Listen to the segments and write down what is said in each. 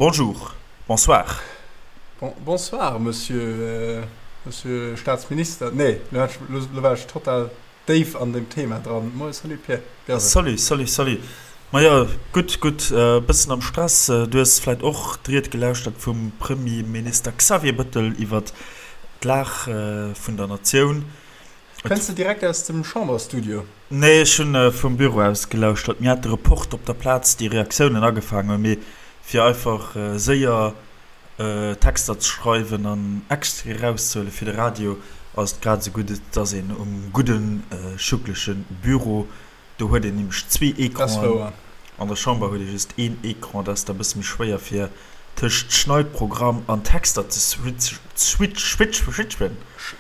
Bonjour, bonsoir. Bon, bonsoir, Monsieur, Monsieur Staatsminister. Nee, lo hat ech, lo war ech total déif an dem Thema dran. Moie, salut Pierre, wéi ass et? Salut, salut, salut. Majo, gutt, gutt, e bëssen am Stress. Du hues vläit och d'Ried gelauschtert vum Premierminister Xavier Bëttel iwwert d'Lag vun der Natioun. Kënns de direkt aus dem Chamberstudio? Nee, ech hunn vum Büro aus gelauschtert. Mir hate Report op der Plaz, déi Reaktiounen agefaangen hunn, mee fir einfach séier Texter ze schreiwen an Extraite erauszehuele fir de Radio, ass et grad esou gutt, et ass een um gudde schuckleche Büro. Do huet een nämlech zwee Ecranen. An der Chamber huet ee just een Ecran. Dat ass da e bësse méi schwéier fir tëscht Schneidprogramm an Texter ze switchen.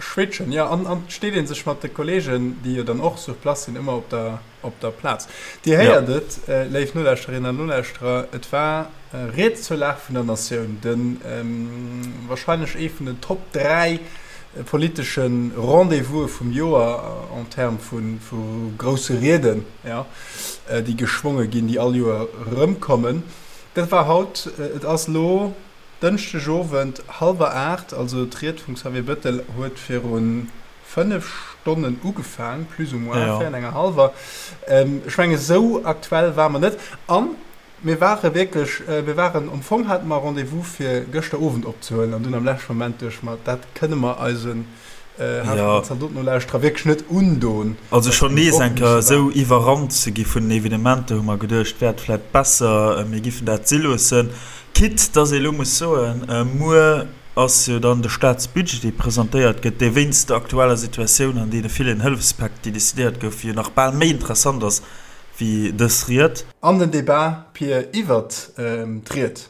Switchen, jo. An et steet ee sech mat de Kolleegen, déi jo dann och sur place sinn, ëmmer op der op der Plaz. Dir héiert et, léif Nolauschterinnen an Nolauschterer, et war Ried zur Lag vun der Natioun, de wahrscheinlech ee vun den Top 3 politesche Rendez-vouse vum Joer en termes vu grousse Rieden, jo, déi geschwonge ginn, déi all Joer erëmkommen. Dat war haut. Et ass elo Dënschdeg Owend hallwer 8, also d'Ried vum Xavier Bettel huet virun 5 Stonnen ugefaang, plus ou moins, 4 an enger hallwer. Ech menge sou aktuell ware mer net. A mir ware wierklech, mir waren, am Fong hate mer Rendez-vous fir gëschter Owend opzehuelen an dunn am leschte Moment duecht mer, dat kënne mer eisen Zaldoten-Nolauschterer wierklech net undon. Also schonn nees eng Kéier esou iwwerrannt ze gi vun den Evenementer, hu mer geduecht, wär et vläicht besser, mir giffen dat si loossen. Quitte dass ee elo muss soen, muer ass jo dann de Staatsbudget, dee presentéiert gëtt, dee wéinst der aktueller Situatioun an deene villen Hëllefspäck, déi decidéiert goufen, jo nach bal méi interessant ass wéi dës Ried. An den Debat, Pir, iwwert d'Ried,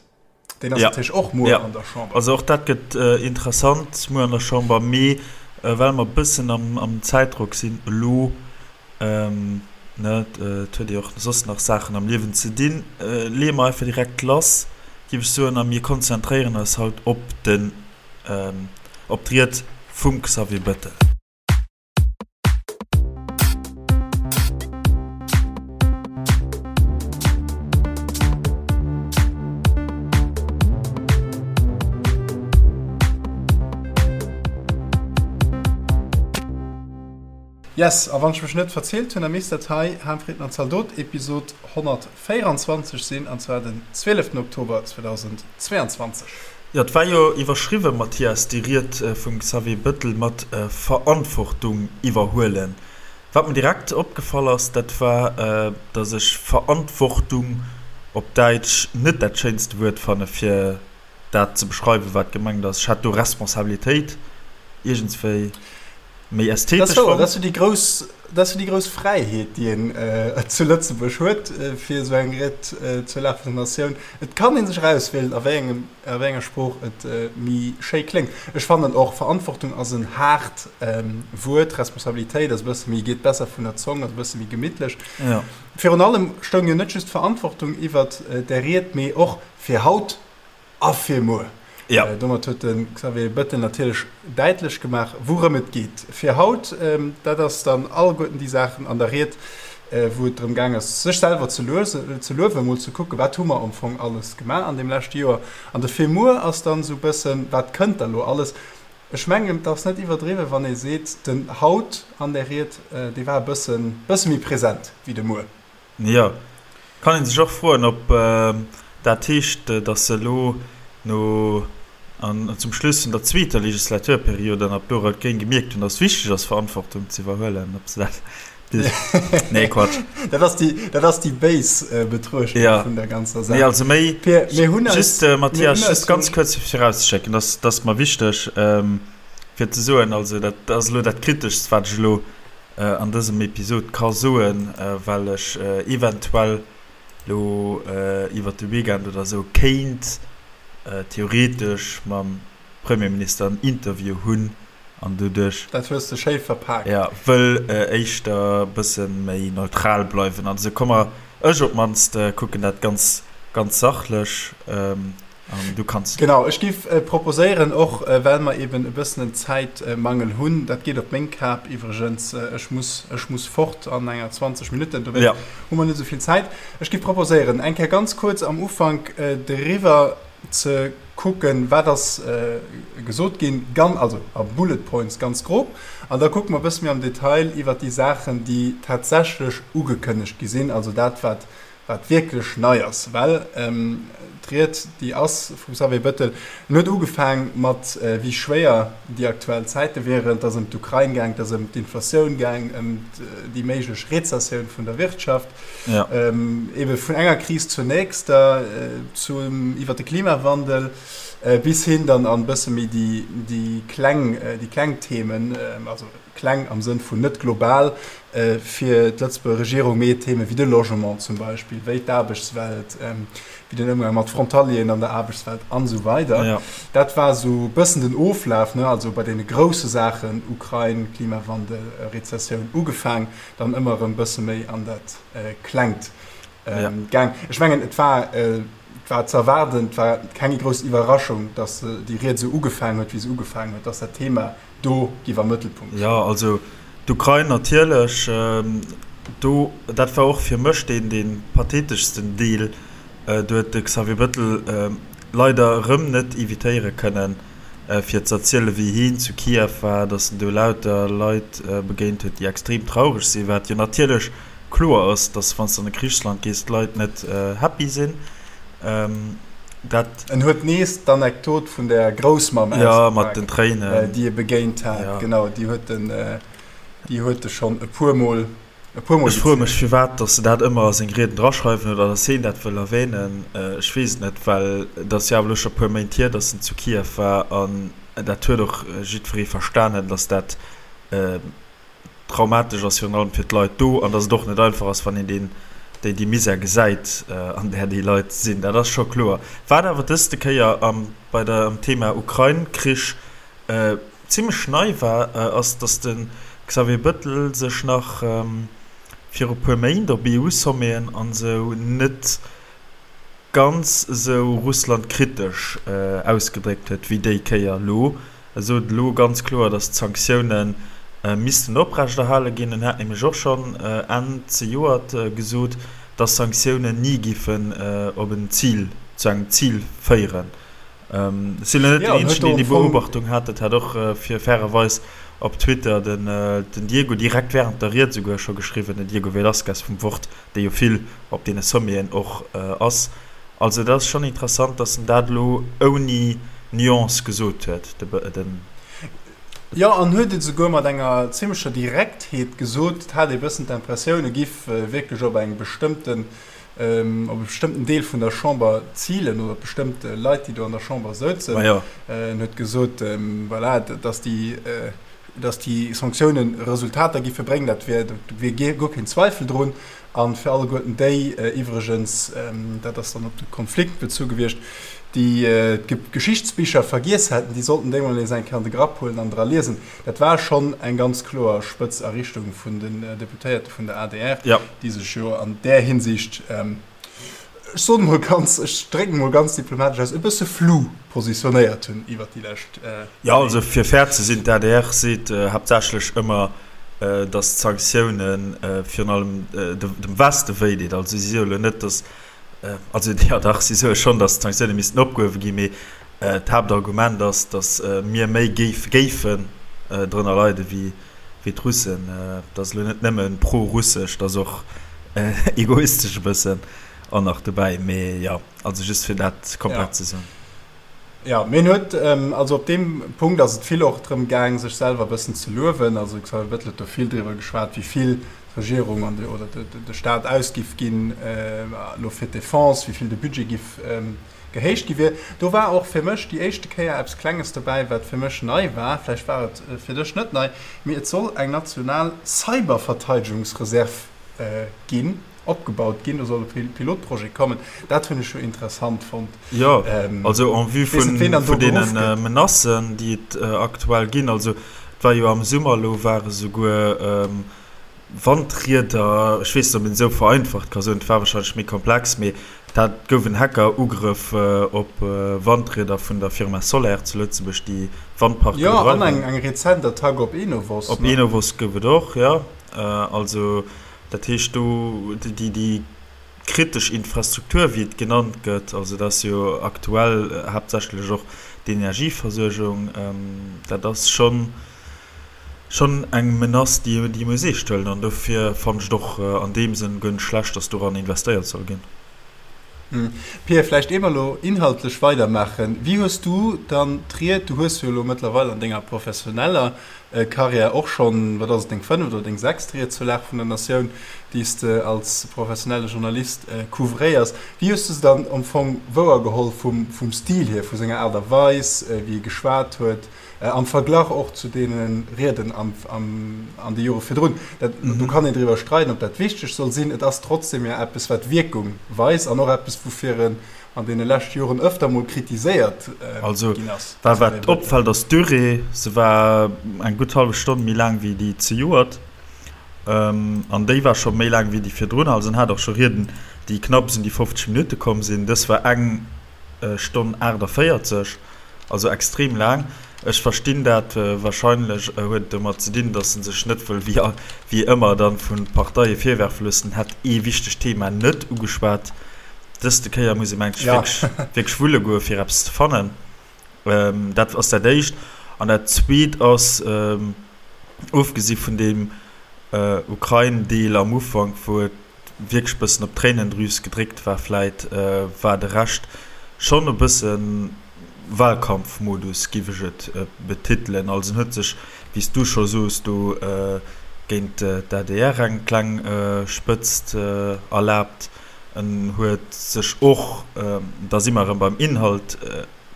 deen ass natierlech och muer an der Chamber. Also och dat gëtt interessant muer an der Chamber. Mee well mer e bëssen am Zäitdrock sinn elo, Ne, et huet ee och soss nach Saachen am Liewen ze dinn. Leeë mer einfach direkt lass, géif ech soen, a mir konzentréieren eis haut op den, op d'Ried vum Xavier Bettel. Yes, a wann ech mech net verzielt hunn, da misst dat hei Harmfrieden an Zaldot Episod 124 sinn, an zwar den 12 Oktober 2022. Jo, et war jo iwwerschriwwen, Mathias, déi Ried vum Xavier Bettel mat Verantwortung iwwerhuelen. Wat mir direkt opgefall ass, dat war, datt ech Verantwortung op Däitsch net dat schéinste Wuert fanne fir dat ze beschreiwen, wat gemengt ass. Ech hat do Responsabilitéit iergendswéi méi ästhetesch fonnt. Dat ass jo déi grouss, dat ass jo déi grouss Fräiheet, déi een zu Lëtzebuerg huet, fir esou eng Ried zur Lag vun der Natioun. Et kann ee sech erauswielen, a wéi engem, a wéi enger Sprooch et méi schéi kléngt. Ech fannen och, Verantwortung ass en haart Wuert, Responsabilitéit ass e bësse méi, geet besser vun der Zong, ass e bësse méi gemittlech. Virun allem stoung jo net just d'Verantwortung iwwert där Ried, mee och fir haut A fir muer. Ja. Domat huet de Xavier Bettel natierlech däitlech gemaach, wourëm et geet. Fir haut, dat ass dann alleguerten déi Saachen an der Ried, wou et drëm gaang ass, sech selwer ze luewen, emol ze kucken, wat hu mer am Fong alles gemaach an deem leschte Joer. An de fir muer ass dann esou e bëssen, wat kënnt da lo alles. Ech mengen, et ass net iwwerdriwwen, wann ee seet, den haut an där Ried, dee war e bëssen, bësse méi present wéi de muer. Jo, kann een sech och froen, ob dat heescht, datt se elo no an zum Schluss vun der zweeter Legislaturperiod an ab do Rout-Gréng gemierkt hunn, datt et wichteg ass, Verantwortung ze iwwerhuelen, ob se dat bis. Nee, Quatsch. Dat ass déi, dat ass déi béis Betruechtung Ja. vun der ganzer Saach. Nee, also méi, Pir, mir hunn eis, just, mir Mathias, hunn eis just ganz kuerz virauszeschécken, dat, dat ass mer wichteg, fir ze soen, also dat ass elo dat Kriteschst, wat ech elo an dësem Episod ka soen, well ech eventuell lo iwwert de Weekend oder sou kéint theoretesch mam Premierminister en Interview hunn an doduerch. Dat hues de schéi verpaakt. Jo, wëll éischter e bësse méi neutral bleiwen an esou. Komm mer, ech op d'mannst kucken dat ganz, ganz sachlech. An du kanns. Genau, ech giff proposéieren, och well mer eben e bëssen en Zäitmangel hunn, dat geet op meng Kap iwwregens, ech muss, ech muss fort an enger 20 Minutten, dowéinst Ja. hu mer net esou vill Zäit. Ech giff proposéieren, eng Kéier ganz kuerz am Ufank driwwer. ze kucken, wat ass gesot ginn, gan, also a Bullet Points ganz grob, an da kucke mer e bësse méi am Detail iwwert déi Saachen, déi tatsächlech ugekënnegt gi sinn, also dat, wat wat wierklech nei ass, well d'Ried, déi ass vum Xavier Bettel, en huet ugefaang mat wéi schwéier déi aktuell Zäite wieren, et ass ëm d'Ukrain gaang, et ass ëm d'Inflatioun gaang, ëm déi méiglech Rezessioun vun der Wirtschaft, ebe vun enger Kris zur nächster, zum iwwer de Klimawandel bis hin dann an e bësse méi déi kleng, déi kleng Themen, also kleng am Sënn vun net global fir d'Lëtzebuerger Regierung, mee Theme wéi de Logement zum Beispill, wéi d'Aarbechtswelt, wéi den Ëmgang mat Frontalieren an der Aarbechtswelt an esou weider. Dat war esou e bëssen den Oflaf, ne, also bei deene grousse Saachen, Ukrain, Klimawandel, Rezessioun, ugefaang, dann ëmmer erëm e bësse méi an dat Klengt gaang. Ech mengen, et war, et war ze erwaarden, et war keng grouss Iwwerraschung, datt déi Ried esou ugefaangen huet, wéi se ugefaangen huet, datt dat Thema do giff am Mëttelpunkt stoen. Jo, also d'Ukrain natierlech, do, dat war och fir mech deen, dee patheteschsten Deel. Do huet de Xavier Bettel leider erëm net evitéiere kënnen, fir ze erzielen, wéi hien zu Kiew war, datt en do lauter Leit begéint huet, déi extrem traureg sinn, wat jo natierlech kloer ass, datt wann s de an e Krichsland gees, d'Leit net happy sinn. Dat. En huet nees d'Anekdot vun der Groussmamm ausgepaakt, mat den Tréinen, déi e begéint hat. Ja. Genau, déi huet en, déi huet e schonn e puermol, e puermol Ech froe mech, firwat dass se dat ëmmer a seng Rieden draschreiwen oder dass heen dat wëll erwänen. Ech weess et net, well et ass jo awer elo scho e puer Méint hier, dass en zu Kiew war an dat huet och jiddweree verstanen, dass dat traumatesch ass, virun allem fir d'Leit do, an datt et och net einfach ass, wann een deen, déi, déi Misär gesäit, an där déi Leit sinn. Dat ass scho kloer. Wat awer dëste Kéier am, bei der, am Thema Ukrain-Krich zimlech nei war, ass, datt de Xavier Bettel sech nach viru puer Méint op EU-Sommeten an esou net ganz esou russlandkritesch ausgedréckt huet wéi déi Kéier elo. E sot elo ganz kloer, datt d'Sanktioune missten oprechterhale ginn. En hat nämlech och schonn Enn zejoert gesot, datt Sanktiounen ni giffen op en Zil, zu engem Zil féieren. Ech sinn elo net deen Eenzegen, deen déi Beobachtung hat. Dat hat och fir fairerweis op Twitter den Diego direkt wärend der Ried esouguer scho geschriwwen, den Diego Velazquez vum Wort, dee jo vill op deene Sommeten och ass. Also dat ass schonn interessant, datt en dat elo ouni Nuance gesot huet, den. Jo, an huet et esouguer mat enger zimlecher Direktheet gesot. Et hat ee bëssen d'Impressioun, e giff wierklech op eng bestëmmten, op e bestëmmten Deel vun der Chamber zilen oder op bestëmmt Leit, déi do an der Chamber souzen. En huet gesot, voilà, datt déi, datt déi Sanktiounen Resultater giffe bréngen, dat wier, do wier guer keen Zweifel drun. A fir alleguerten déi iwwregens, dat ass dann op de Konflikt bezu gewiescht, déi d'Geschichtsbicher vergiess hätten, déi sollten déi mol nees eng Kéier an de Grapp huelen an dra liesen. Dat war schonn eng ganz kloer spëtz a Richtung vun den Deputéierte vun der adr, déi sech jo an där Hinsicht, ech soen emol ganz, ech drécken emol ganz diplomatesch aus, e bësse flou positionéiert hunn iwwert déi lescht Méint. Jo, also fir fair ze sinn, d'ADR seet haaptsächlech ëmmer, datt d'Sanktioune virun allem dem Weste wéi deet. Also si soe lo net, datt, also jo dach, si soe schonn, datt d'Sanktioune missten opgehuewe ginn, mee d'Haaptargument ass, datt mir méi géifen drënner leide wéi d'Russen. Dat ass elo net nëmme pro-russesch, dat ass och egoistesch e bëssen och nach dobäi. Mee jo, also just fir dat komplett ze soen. Jo, mee en huet, also op deem Punkt ass et vill och drëm gaang, sech selwer e bëssen ze luewen. Also de Xavier Bettel huet do vill driwwer geschwat, wéi vill d'Regierung an de, oder de Staat ausgiff ginn elo fir d'Defense, wéi vill de Budget giff gehéicht gi wier. Do war och fir mech déi éischte Kéier eppes Klenges dobäi, wat fir mech nei war. Vläicht war et fir dech net nei, mee et soll eng national Cyberverteidegungsreserv ginn. Opgebaut ginn. Do soll e Pilotprojet kommen. Dat hunn ech jo interessant fonnt. Jo, also en vue vun deene Menacen, déi et aktuell ginn. Also et war jo am Summer elo, ware souguer Wandrieder, ech weess net, ob een esou vereinfacht ka soen, et war wahrscheinlech méi komplex, mee dat gouf en Hackerugrëff op Wandrieder vun der Firma Soler zu Lëtzebuerg, déi Wandparke bedreiwen. Jo, an eng rezent Attack op Enovos. Op Enovos gouf et och, jo. Also. Dat heescht, do, déi, déi. kritesch Infrastruktur, wéi et genannt gëtt, also dat ass jo aktuell haaptsächlech och d'Energieversuergung, dat ass schonn, schonn eng Menace, déi ee muss eescht huelen. An dofir fannen ech et och an deem Sënn guer net schlecht, datt doran investéiert soll ginn. Pia, vläicht ier mer elo inhaltlech weidermaachen, wéi hues du dann d'Ried, du hues jo elo mëttlerweil an denger professioneller Karriär och schonn, wat ass et, deng fënneft oder deng sechst Ried zur Lag vun der Natioun, déi s de als professionelle Journalist couvréiers, wéi hues du se dann am Fong wouergeholl vum Stil hier, vu senger Aart a Weis, wéi e geschwat huet? Am Verglach och zu deene Rieden an de Jore virdrun. Do kann een driwwer streiden, ob dat wichteg soll sinn. Et ass trotzdem jo eppes, wat Wierkung weist an och eppes, woufir en an deene leschte Joren ëfter mol kritiséiert ginn ass. Also, wat opfält, ass d'Durée. Se war eng gutt hallef Stonn méi laang wéi déi zejoert. An déi war scho méi laang wéi déi virdrun. Also en hat och scho Rieden, déi knapps un déi 50 Minutte komm sinn. Dës war eng Stonn 48. Also extrem laang. Ech verstinn dat. Wahrscheinlech huet et domat ze dinn, datt en sech net wëll wéi ëmmer dann vun Parteie virwerfe loossen, en hätt ee wichtegt Thema net ugeschwat. Dëste Kéier muss ee mengt ech wierklech wulle goe fir eppes ze fannen. Dat ass dat éischt. An dat zweet ass, ofgesi vun deem Ukrain-Deel am Ufank, wou et wierklech bëssen op d'Tréinendrüs gedréckt war, vläit war de Rescht schonn e bësse Wahlkampfmodus, giff ech et betitelen. Also en huet sech, wéi s du scho soos, do géint d'ADR eng kleng Spëtzt erlaabt. En huet sech och, da si mer erëm beim Inhalt,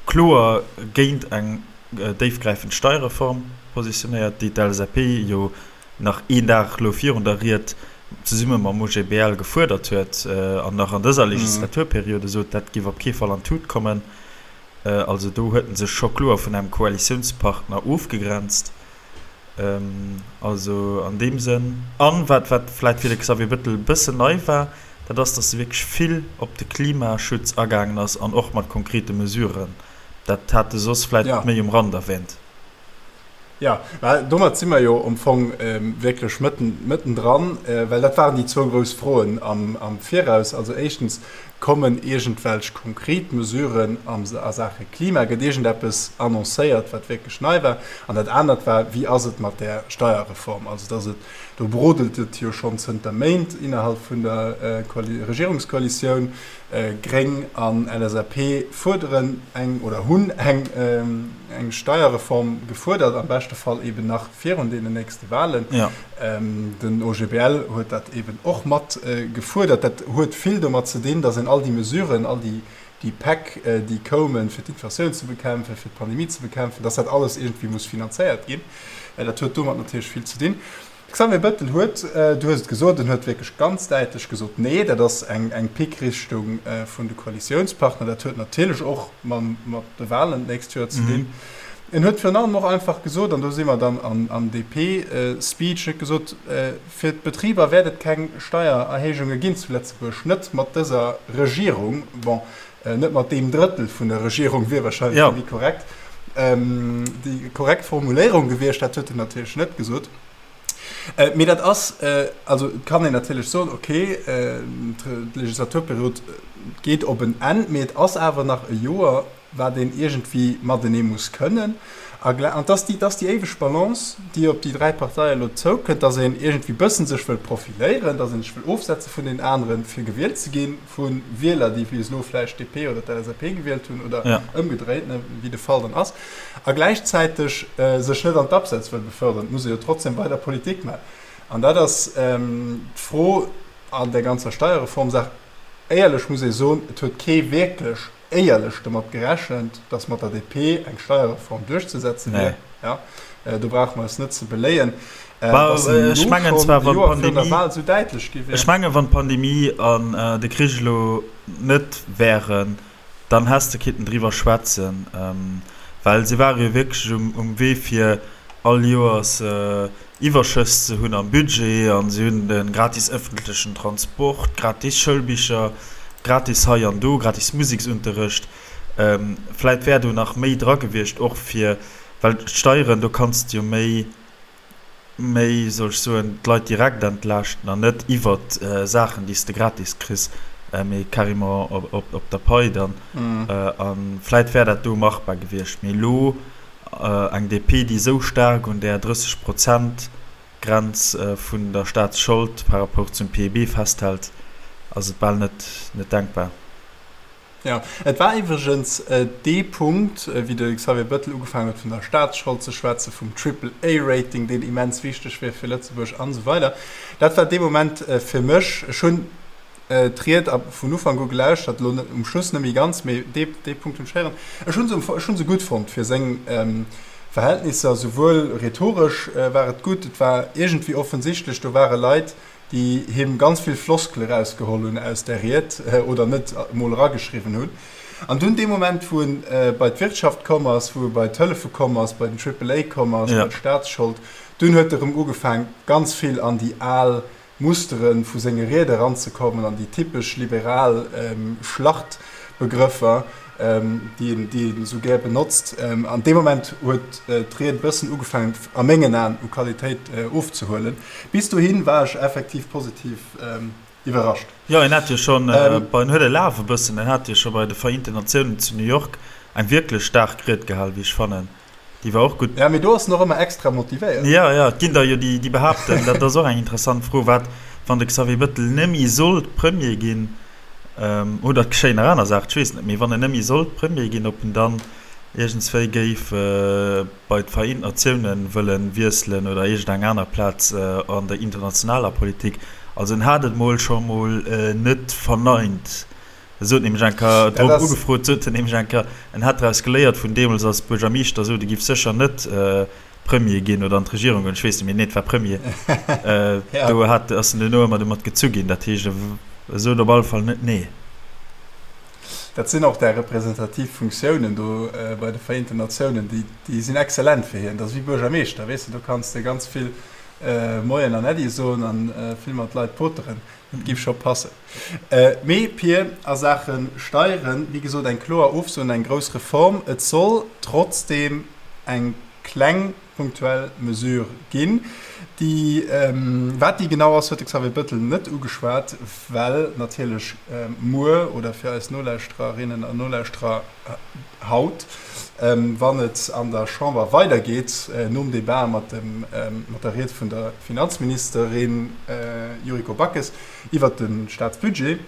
kloer géint eng déifgräifend Steierreform positionéiert, déi d'LSAP jo nach een Dag elo virun der Ried zesumme mam OGBL gefuerdert huet an nach an dëser Legislaturperiode sot, dat géif op kee Fall an d'Tut kommen. Also do huet en sech scho kloer vun engem Koalitiounspartner ofgegrenzt. Also an deem Sënn. An wat wat vläit fir de Xavier Bettel e bëssen nei war, dat ass, datt e wierklech vill op de Klimaschutz agaangen ass an och mat konkrete Mesuren. Dat hat e soss vläit méi um Rand erwähnt. Jo, mä domat si mer jo am Fong wierklech mëtten, mëttendran, well dat waren déi zwou grouss Froen am, am Viraus. Also éischtens, kommen iergendwelch konkret Mesuren am, a Saache Klima? Gëtt iergendeppes annoncéiert, wat wierklech nei war? An dat anert war, wéi ass et mat där Steierreform? Also dass et, do brodelt et jo schonn zënter Méint innerhalb vun der Regierungskoalitioun. Gréng an LSAP fuerderen eng oder hunn eng eng Steierreform gefuerdert, am beschte Fall eben nach virun deenen nächste Wahlen. Den OGBL huet dat eben och mat gefuerdert. Dat huet vill domat ze dinn, datt een all déi Mesuren, all déi déi Päck, déi koumen, fir d'Inflatioun ze bekämpfen, fir d'Pandemie ze bekämpfen, datt dat alles iergendwéi muss finanzéiert ginn. Dat huet domat natierlech vill ze dinn. De Xavier Bettel huet, du hues et gesot, en huet wierklech ganz däitlech gesot, Nee, dat ass eng Pickrichtung vun de Koalitiounspartner. Dat huet natierlech och mat de Wahlen d'nächst Joer ze dinn. En huet virun allem och einfach gesot, an do si mer dann am DP-Speech, en huet gesot, fir d'Betriber wäert et keng Steiererhéijunge ginn zu Lëtzebuerg, net mat dëser Regierung. Bon, net mat deem Drëttel vun der Regierung wier wahrscheinlech méi korrekt, déi korrekt Formuléierung gewiescht. Dat huet en natierlech net gesot. Mee dat ass, also et kann een natierlech soen, okay, d'Legislaturperiod geet op en Enn, mee et ass awer nach e Joer, wat een iergendwéi matenee muss kënnen. A an et ass déi, et ass déi éiweg Balance, déi op déi 3 Parteie elo zoukënnt, datt een iergendwéi bëssen sech wëll profiléieren, datt een sech wëll ofsetze vun deenen aneren, fir gewielt ze ginn, vu Wieler, déi bis elo vläicht d'DP oder d'LSAP gewielt hunn oder ëmgedréit, wéi de Fall dann ass, a gläichzäiteg sech net an d'Abseits wëll befördern. Et muss ee jo trotzdem weider Politik maachen. An dat ass d'Fro an där ganzer Steierreformsaach. Éierlech muss ee soen, et huet kee wierklech éierlech domat gerechent, datt mat der DP eng Steierreform duerchzesetze wier. Ja, do brauche mer eis net ze beléien, datt se elo schonn e Joer virun der Wahl esou däitlech gi wier. Ech mengen, wann d'Pandemie an de Krich elo net wären, dann häss de kinnten driwwer schwätzen, well se ware jo wierklech um Wee fir all Joers Iwwerschëss ze hunn am Budget an se hunn de gratis ëffentlechen Transport, gratis Schoulbicher, gratis hei an do, gratis Museksunterrecht. Vläit wär do nach méi dra gewiescht och fir, well d'Steieren, do kanns de jo méi, méi, soll ech soen, d'Leit direkt entlaaschten an net iwwert Saachen, déi s de gratis kriss. Mee carrément op der Pai dann. A vläit wär dat do machbar gewiescht. Mee elo eng DP, déi esou staark un där 30 Prozent Grenz vun der Staatsschold par rapport zum PIB festhält, ass et bal net denkbar. Jo, et war iwwregens dee Punkt, wéi de Xavier Bettel ugefaangen huet vun der Staatsschold ze schwätzen, vum Triple-A-Rating, deen immens wichteg wier fir Lëtzebuerg an esou weider. Dat war dee Moment fir mech, ech hunn d'Ried vun Ufank u gelauschtert, elo net um Schluss net méi ganz, mee dee dee Punkt hunn ech héieren. Ech hu se ech hu se gutt fonnt fir seng Verhältnisser, souwuel rhetoresch war et gutt, et war iergendwéi offensichtlech, do ware Leit, déi him ganz vill Floskele rausgeholl hunn aus där Ried oder net emol erageschriwwen hunn. An dunn dee Moment, wou en bei d'Wirtschaft komm ass, wou e bei d'Hëllefe komm ass, bei den Triple A komm ass, bei d'Staatsschold, dunn huet e rëm ugefaang, ganz vill an déi al Mustere vu senge Riede eranzekommen, an déi typesch liberal Schlachtbegrëffer. déi en esou gär benotzt. An deem Moment huet d'Ried e bëssen ugefaangen, a mengen Aen, u Qualitéit ofzehuelen. Bis dohi war ech effektiv positiv iwwerrascht. Jo, en hat jo schonn bei, en huet e Laf e bëssen, en hat jo scho bei de Vereenten Natiounen zu New York eng wierklech staark Ried gehal, wéi ech fannen. Déi war och gutt. Ja, mee do ass en och ëmmer extra motivéiert. Jo, jo, et ginn der jo déi, déi behaapten, dat ass och eng interessant Fro, wat, wann de Xavier Bettel nëmme sollt Premier ginn, oder et geschéien nach aner Saachen, ech weess net, mee wann en nëmme sollt Premier ginn, ob en dann iergendswéi géif bei d'Vereent Natiounen wëlle wiesselen oder iergendeng aner Plaz an der internationaler Politik. Also en hat et mol scho mol net verneint. E sot nämlech eng Kéier, drop ugefrot, sot en nämlech eng Kéier, en hätt draus geléiert vun deemools als Buergermeeschter, sot e giff sécher net Premier ginn oder an d'Regierung goen, ech weess net méi, nee et war Premier, do hat, ass en duerno ëmmer domat gezu ginn. Dat heescht, e sot op alle Fall net nee. Dat sinn och där representativ Funktiounen do bei de Vereenten Natiounen, déi, déi sinn exzellent fir hien. Dat ass wéi Buergermeeschter, weess de, do kanns de ganz vill Moien an Äddi soen a vill mat Leit poteren. Dat giff scho passen. Mee Pir, a Saache Steieren, wéi gesot, eng kloer Ofso un eng grouss Reform. Et soll trotzdeem eng kleng punktuell Mesure ginn, déi, wat déi genau ass, huet de Xavier Bettel net ugeschwat, well natierlech muer, oder fir eis Nolauschtererinnen an Nolauschterer haut, wann et an der Chamber weidergeet, nom Debat mat der Ried vun der Finanzministerin Yuriko Backes iwwert de Staatsbudget,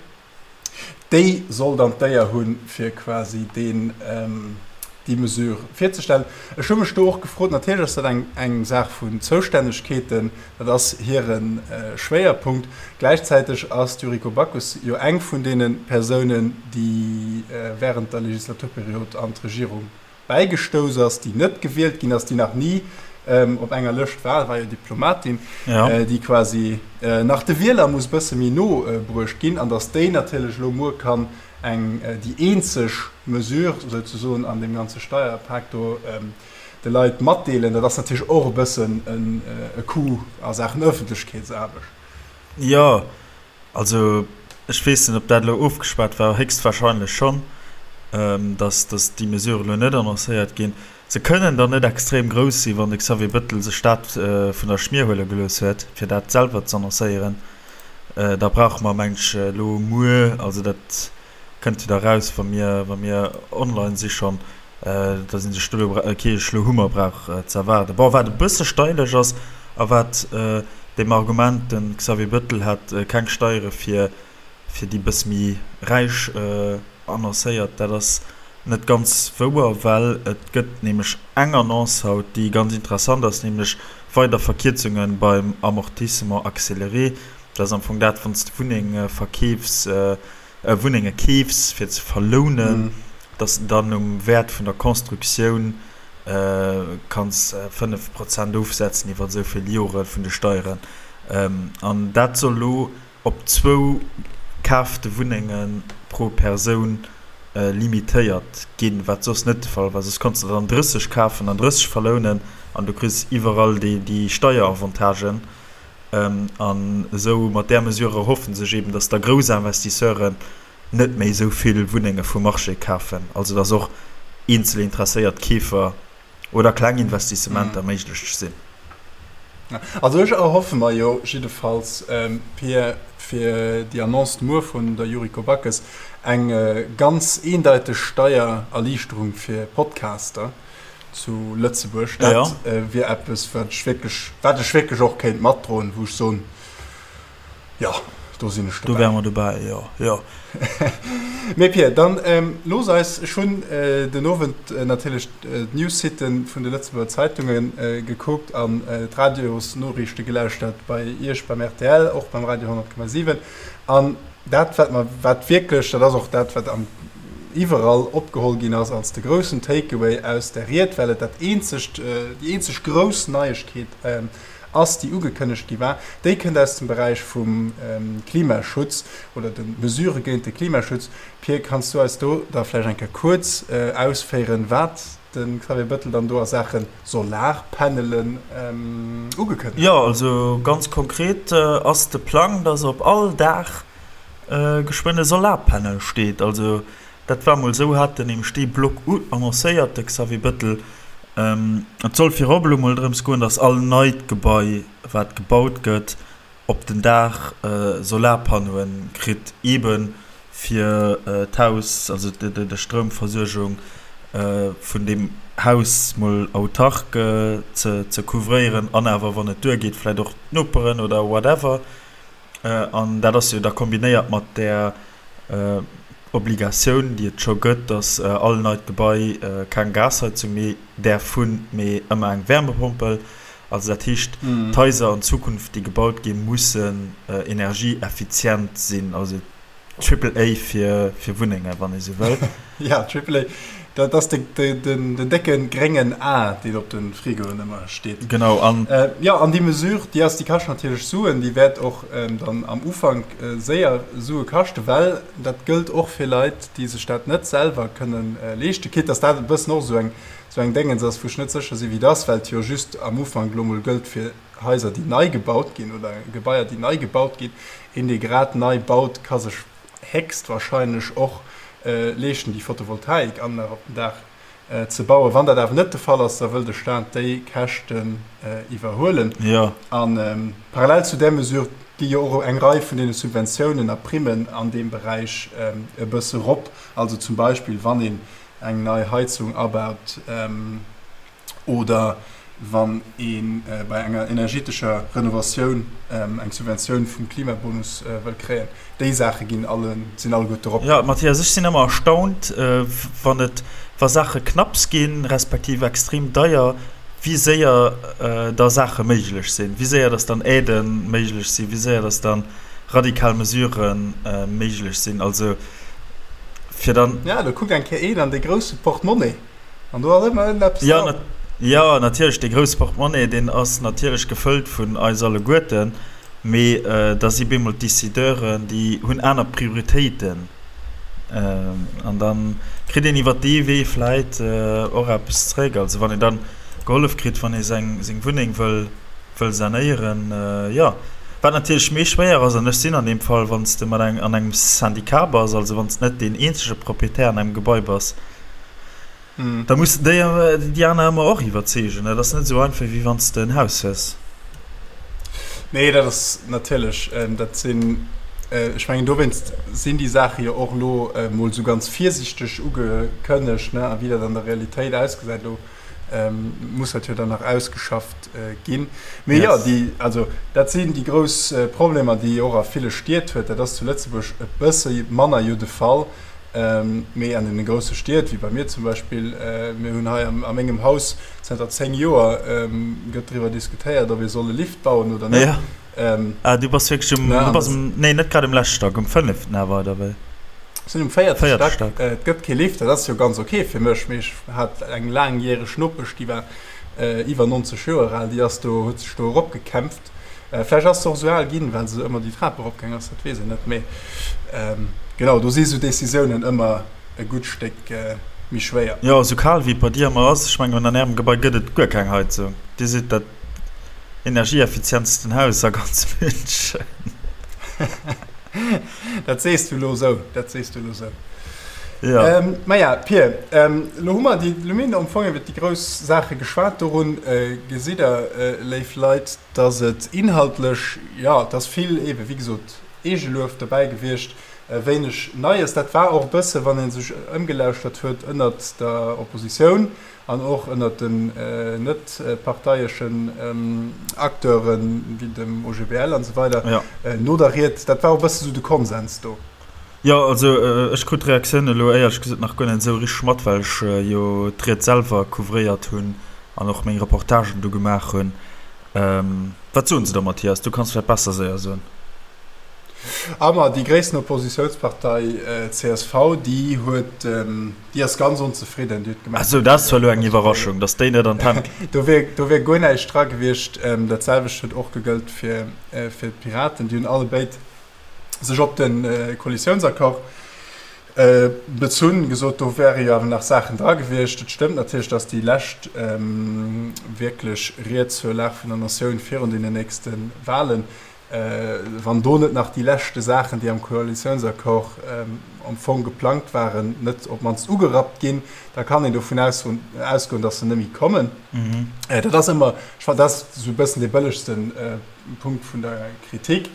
déi soll dann d'Éier hunn, fir quasi deen, déi Mesure virzestellen. Ech hu mech do och gefrot, natierlech ass dat eng, eng Saach vun Zoustännegkeeten, dat ass hire Schwéierpunkt. Gläichzäiteg ass d'Yuriko Backes jo eng vun deene Persounen, déi während der Legislaturperiod an d'Regierung bäigestouss ass, déi net gewielt ginn ass, déi nach ni op enger Lëscht war, war jo Diplomatin, déi quasi nach de Wieler muss e bësse méi no bruecht ginn, an datt déi natierlech elo muer kann eng, déi eenzeg Mesure souzesoen an deem ganze Steierpak do de Leit matdeelen, dat ass natierlech och e bëssen e Coup a Saachen Ëffentlechkeetsaarbecht. Jo, Also ech weess net, ob dat elo ofgeschwat war, héchstwahrscheinlech schonn, dass dass déi Mesure elo net annoncéiert ginn. Se kënnen dann net extrem grouss sinn, wann de Xavier Bettel sech dat vun der Schmier huele gelooss huet, fir dat selwer z'annoncéieren. Da brauche mer, meng ech, elo muer, also dat kënnt jo da raus, wa mir wa mir online si schonn, dass ee sech do elo kee schloe Hummer brauch ze erwaarden. Bon, wat e bësse steilech ass a wat deem Argument, de Xavier Bettel hätt keng Steiere fir fir déi bësse méi Räich annoncéiert, dat ass net ganz wouer, well et gëtt nämlech eng Annonce haut, déi ganz interessant ass, nämlech weider Verkierzunge beim Amortissement accéléré. Dat ass am Fong dat, wann s de Wunneng verkeefs, Wunnenge keefs fir ze verlounen, dass de dann um Wäert vun der Constructioun kanns 5 Prozent ofsetzen iwwer esou vill Jore vun de Steieren. An dat soll elo op zwou kaafte Wunnenge pro Persoun limitéiert ginn, wat soss net de Fall war. Soss konns de der dann 30 kafen an 30 verlounen an du kriss iwwerall déi Steieravantagen. An esou mat där Mesure erhoffe sech eben, datt da grouss Investisseuren net méi esou vill Wunnenge vum Marché kafen, also datt och eenzel interesséiert Keefer oder kleng Investissementer méiglech sinn. Also ech erhoffe mer jo jiddefalls, Pir, fir déi Annonce muer vun der Yuriko Backes, eng ganz eendeiteg Steiererliichterung fir Podcaster zu Lëtzebuerg. Dat wier eppes, wat ech wierklech, wat ech wierklech och kéint matdroen, wou ech soen, Jo, do sinn ech dobäi. Do wäre mer dobäi, jo, jo. Mee Pir, dann looss eis, ech hunn den Owend natierlech d'News-Siten vun de Lëtzebuerger Zeitunge gekuckt an d'Radiosnoriichte gelauschtert bei Iech beim rtl, och beim Radio 100,7. An dat, wat mer, wat wierklech, dat ass och dat, wat am iwwerall opgeholl ginn ass als de groussen Takeaway aus där Ried, well et dat eenzegt, déi eenzeg grouss Neiegkeet ass, déi ugekënnegt gi war, déi kënnt aus dem Beräich vum Klimaschutz oder de Mesurë géint de Klimaschutz. Pir, kanns du eis do da vläicht eng Kéier kuerz ausféieren, wat de Xavier Bettel dann do a Saache Solarpanelen ugekënnegt huet? Jo, also ganz konkret ass de Plang, dass op all Daach geschwënn e Solarpanel steet. Also Dat war mol esou, hat den nämlech dee Block annoncéiert, de Xavier Bettel. Et soll virop elo mol drëms goen, datt all neit Gebai, wat gebaut gëtt, op den Daach Solarpannoe kritt, eebe fir d'Haus, also de Stroumversuergung vun deem Haus mol autark ze couvréieren an awer, wann et duergeet, vläicht och d'Noperen oder whatever. An dat ass jo da kombinéiert mat där Obligatioun, déi et scho gëtt, dass all neit Gebai keng Gasheizung méi däerf hunn, mee ëmmer eng Wärmepompel. Also dat heescht, d'Haiser an Zukunft, déi gebaut ginn, mussen energieeffizient sinn. Also Triple A fir Wunnengen, wann ee sou wëll. Ja, Triple A, dat ass den décke gréngen A, deen op de Frigoen ëmmer steet. Genau, an. Jo, an déi Mesure, déi ass, déi kascht natierlech Suen, déi wäert och dann am Ufank séier Sue kaschten, well dat gëllt och fir Leit, déi sech dat net selwer kënne leeschten, quitte dass dat e bëssen och esou eng, esou eng Déngens ass, wou ech net sécher sinn, wéi et ass, well et jo just am Ufank elo mol gëllt fir Haiser, déi nei gebaut ginn oder Gebaier, déi nei gebaut ginn. Een, dee grad nei baut, ka sech héchstwahrscheinlech och leeschten, déi Photovoltaikanlag op den Daach ze bauen. Wann dat awer net de Fall ass, da wëll de Staat déi Käschten iwwerhuelen. A parallel zu där Mesure gi jo och eng Rei vun deene Subventiounen a Primmen an deem Beräich e bësse rop. Also zum Beispill, wann een eng nei Heizung abaut, oder wann ee bei enger energetescher Renovatioun eng Subventioun vum Klimabonus wëll kréien. Déi Saache ginn alle, sinn alleguerte erop. Jo, Mathias, ech sinn ëmmer erstaunt, wann et, wa Saache knapps ginn, respektiv extrem deier, wéi séier da Saache méiglech sinn, wéi séier dass dann Aidë méiglech sinn, wéi séier dass dann radikal Mesurë méiglech sinn. Also fir dann. Jo, do kuckt eng Kéier een an dee grousse Portemonnaie. An do ass ëmmer ënneppes dran. Ja, ja, natierlech, dee grousse Portemonnaie, deen ass natierlech gefëllt vun eis alleguerten, mee da si bemol d'Decideuren, déi hunn aner Prioritéiten. An da kritt een iwwer dee Wee vläit och eppes zréck. Also wann een dann gehollef kritt, wann ee seng, seng Wunneng wëll, wëll sanéieren, jo. Wat natierlech méi schwéier ass, an ech sinn an deem Fall, wann s de mat eng, an engem Syndicat bass, also wann s de net deen eenzege Proprietär an engem Gebai bass, Da muss de déi, déi aner ëmmer och iwwerzeegen. Dat ass net esou einfach, wéi wann s de en Haus hues. Nee, dat ass natierlech, dat sinn, ech mengen, dowéinst sinn déi Saache jo och elo emol esou ganz virsichteg ugekënnegt, ne? A wéi dat an der Realitéit ausgesäit, elo muss dat jo dann nach ausgeschafft ginn. Mee jo, déi, also dat sinn déi grouss Problemer, déi ee och a ville Stied huet. Dat ass zu Lëtzebuerg e bësse manner jo de Fall. Mee an deene grousse Stied, wéi bei mir zum Beispill, mir hunn hei a mengem Haus zënter 10 Joer gëtt driwwer diskutéiert, ob ee soll e Lift bauen oder net. Ja. Ah, du bass wierklech um, du bass um, nee, net grad um leschte Stack, um fënneften awer, oder wéi? Ech sinn um véierte Stack. Et gëtt kee Lift, dat ass jo ganz ok fir mech, mee ech hat eng laangjäreg Nopesch, déi war iwwer 90 Joer al, déi ass do, huet sech do eropgekämpft. Vläicht ass se och esou al ginn, well se ëmmer déi Trap eropgaang ass, dat weess een net. Mee genau, do si sou Decisiounen ëmmer e gutt Stéck méi schwéier. Jo, esou kal wéi et bei dir ëmmer ass, ech mengen an ärem Gebai gëtt et guer keng Heizung. Dir sidd dat energieeffizientsten Haus a ganz München. Dat sees du elo esou, dat sees du elo esou. Ja. Ähm, Maja, Pir, ähm, lo hu mer déi, lo mir hunn am Fong iwwer déi grouss Saache geschwat. Dorun äh, gesitt Der, äh, léif Leit, dass et inhaltlech, jo, et ass vill eebe wéi gesot Eegeluef dobäi gewiescht, äh, wéineg Neies. Dat war och e bësse, wann ee sech ëmgelauschtert huet ënnert der Oppositioun an och ënnert den äh, net parteieschen ähm, Acteuren, wéi dem OGBL an esou weider, Ja. äh, no der Ried, dat war och e bësse sou de Konsens do. Jo, also ech krut d'Reaktioun elo éierlech gesot nach guer net esou richteg mat, well ech jo d'Ried selwer couvréiert hunn an och meng Reportagen do gemaach hunn. Wat soen se da, Mathias? Du kanns vläicht besser séier soen. Ah ma déi gréissten Oppositiounspartei csv, déi huet, déi ass ganz onzefridden. Déi huet gemengt, Ah sou, dat ass zwar elo eng Iwwerraschung, datt déi net an d'Hänn. Do wier, do wier guer näischt dra gewiescht. Dat selwecht huet och gegëllt fir, fir d'Piraten. Déi hunn allebéid sech op de Koalitiounsaccord bezunn, gesot, do wäre jo awer nach Saachen dra gewiescht. Et stëmmt natierlech, datt déi lescht wierklech Ried zur Lag vun der Natioun virun deenen nächste Wahlen, wann do net nach déi leschte Saachen, déi am Koalitiounsaccord am Fong geplangt waren, net op d'mannst ugerappt ginn, da kann een dovun ausgoen, datt se net méi kommen. Dat ass ëmmer, ech fannen, dat ass esou e bëssen dee bëllegsten Punkt vun der Kritik.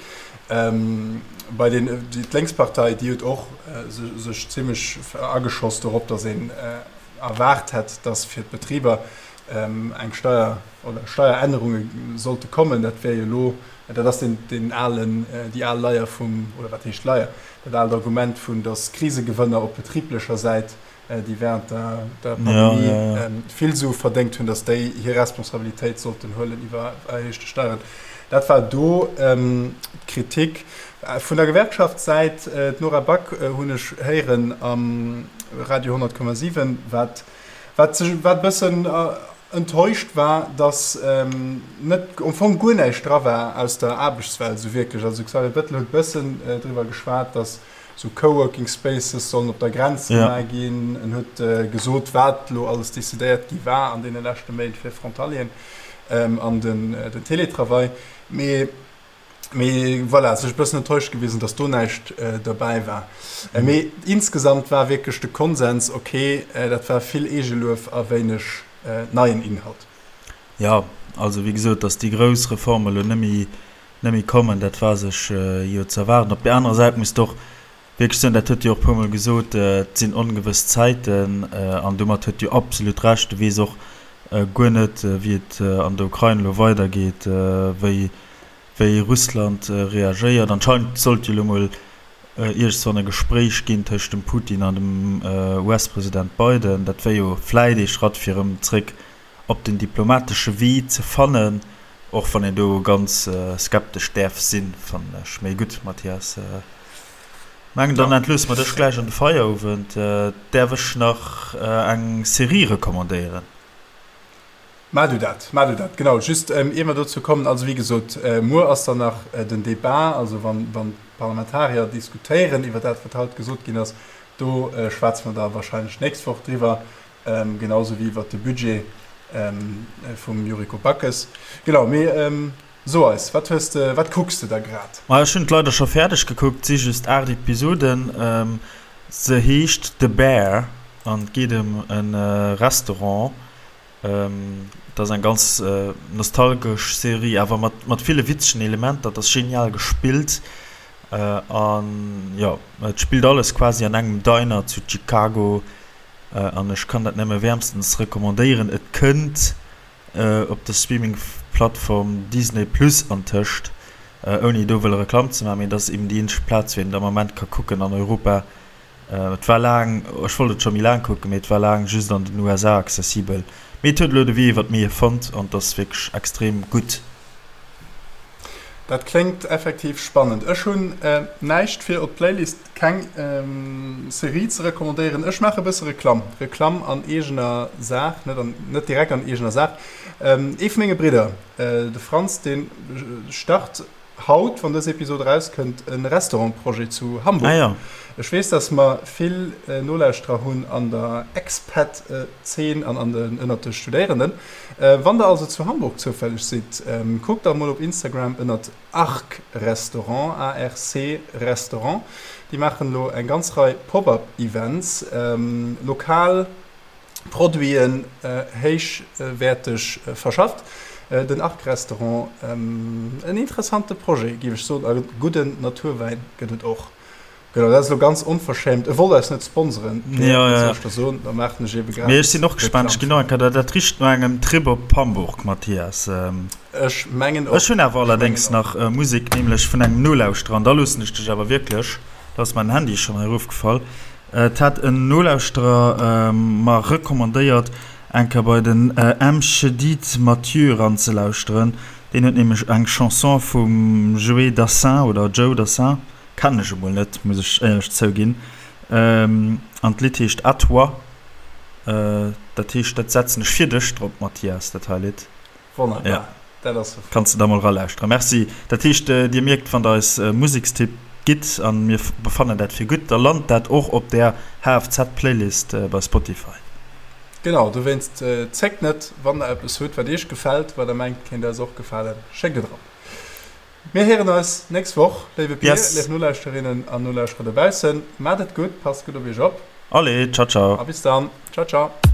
Bei den, d'Lénkspartei, déi huet och sech zimlech ageschoss dorop, datt een erwaart hätt, datt fir d'Betriber eng Steier oder Steierännerunge sollte kommen. Dat wär jo elo, dat ass deen, deen alen, déi al Leier vum, oder wat heescht Leier, dat aalt Argument vun, datt Krisegewënner op betriblecher Säit déi während der, der Pandemie ja, ja, ja. Ähm, vill Sue verdéngt hunn, dass déi hir Responsabilitéit sollten huelen iwwer erhéichte Steieren. Dat war do ähm, d'Kritik. Äh, vun der Gewerkschaftssäit, äh, d'Nora Back äh, hunn ech héieren am Radio 100,7, wat, wat, sech, wat e bëssen äh, enttäuscht war, dass ähm, net am Fong guer näischt dra war aus der Aarbechtswelt esou wierklech. Also Xavier Bettel huet e bëssen äh, driwwer geschwat, dass Sou Coworking Spaces sollen op der Grenz gemaach ginn. En huet gesot, wat elo alles decidéiert gi war an deene leschte Méint fir Frontalieren an den Teletravail. Mee, mee voilà, sech e bëssen enttäuscht gewisen, datt do näischt derbäi war. Mee insgesamt war wierklech de Konsens, ok, dat war vill Eegeluef a wéineg neien Inhalt. Jo, also wéi gesot, datt déi grouss Reforme elo net méi net méi kommen, dat war sech jo ze erwaarden. Op där anerer Säit muss de och wierklech soen, dat huet Dir och e puermol gesot, et sinn ongewëss Zäiten an domat huet Dir absolut Recht. Du weess och guer net, wéi et an der Ukrain elo weidergeet, wéi, wéi Russland reagéiert. Anscheinend sollt jo elo mol iergendswann e Gespréich ginn tëscht dem Putin an dem US-President Biden. Dat wär jo vläit ee Schratt, fir erëm zréck op den diplomatesche Wee ze fannen, och wann een do ganz skeptesch däerf sinn, fannen ech. Mee gutt, Mathias, mengen dann entloosse mer dech gläich an de Feierowend. Däerf ech nach eng Serie recommandéieren? Maach du dat, maach du dat. Genau, just ier mer dozou kommen, also wéi gesot, muer ass dann nach den Debat, also wann d'Parlamentarier diskutéieren iwwer dat, wat haut gesot ginn ass, do schwätze mer da wahrscheinlech d'nächst Woch driwwer. Genau sou wéi iwwert de Budget vum Yuriko Backes. Genau, mee so eis, wat hues de, wat kucks de da grad? Ma ech hunn et leider scho fäerdeg gekuckt, si just 8 Episoden. Se heescht The Bear an et geet ëm e Restaurant. Et ass eng ganz nostalgesch Serie, awer mat mat ville witzegen Elementer. Et ass genial gespillt an jo, et spillt alles quasi an engem Diner zu Chicago. An ech kann dat nëmme wäermstens recommandéieren. Et kënnt op der Streaming-Plattform Disney Plus antëscht, ouni do wëlle Reklamm ze maachen, mee et ass eben déi eenzeg Plaz, wou een et am Ament ka kucken an Europa. Et war laang, ech wollt et scho méi laang kucken, mee et war laang just an den USA accessibel. Mee et huet elo de Wee iwwer d'Mier fonnt an et ass wierklech extrem gutt. Dat kléngt effektiv spannend. Ech hunn näischt fir op d'Playlist, keng Serie ze recommandéieren. Ech maache e bësse Reklamm. Reklamm an eegener Saach, net an, net direkt an eegener Saach. Ee vu menge Bridder, de Franz, dee start. Haut, wann dës Episod erauskënnt, e Restaurant-Projet zu Hamburg. Ah ja. Ech weess, dass mer vill Nolauschterer hunn an der Expat-Zeen an an den, ënnert de Studéierenden. Wann der also zu Hamburg zoufälleg sidd, kuckt da mol op Instagram ënnert Arc Restaurant, ARC Restaurant. Déi maachen elo eng ganz Rei Pop-up-Events, lokal. Produiten héichwäerteg verschafft. Den Arc Restaurant, en interessante Projet, géif ech soen, a gudden Naturwäin gëtt et och. Genau, dat ass elo ganz onverschämt. E wollt eis net sponseren, mee wat soll ech da soen, da maachen ech ebe gratis Mee ech sinn och gespaant. Ech ginn och eng Kéier, dat richt no engem Trip op Hamburg, Mathias. Ech mengen och. Ech hunn awer allerdéngs nach Musek, nämlech vun engem Nolauschterer, an da loossen ech dech awer wierklech, da ass mäin Handy schonn hei erofgefall. Et hat en Nolauschterer mer recommandéiert eng Kéier bei den M. Chedid Mathieu eranzelauschteren. Deen huet nämlech eng Chanson vum Joé Dassin oder Joe Dassin, kennen ech emol net, muss ech éierlech zouginn, an d'Lidd heescht À toi. Dat heescht, dat setzen ech fir dech drop, Mathias, dat hei Lidd. Wonnerbar, ja. Dat ass sou flott. Kanns de da mol ralauschteren. Merci. Dat heescht, Dir mierkt, wann der eis Musekstipp gitt, an mir befannen dat fir gutt, da lant dat och op där HFZ-Playlist bei Spotify. Genau, dowéinst zéckt net, wann der eppes hutt, wat iech gefält, wat der mengt, kéint eis och gefalen, schéckt et erop. Mir héieren eis nächst Woch, léiwe Pir, léif Nolauschterinnen an Nolauschterer dobaussen. Maacht et gutt, passt gutt op iech op. Allez, ciao, ciao. A bis dann. Ciao, ciao.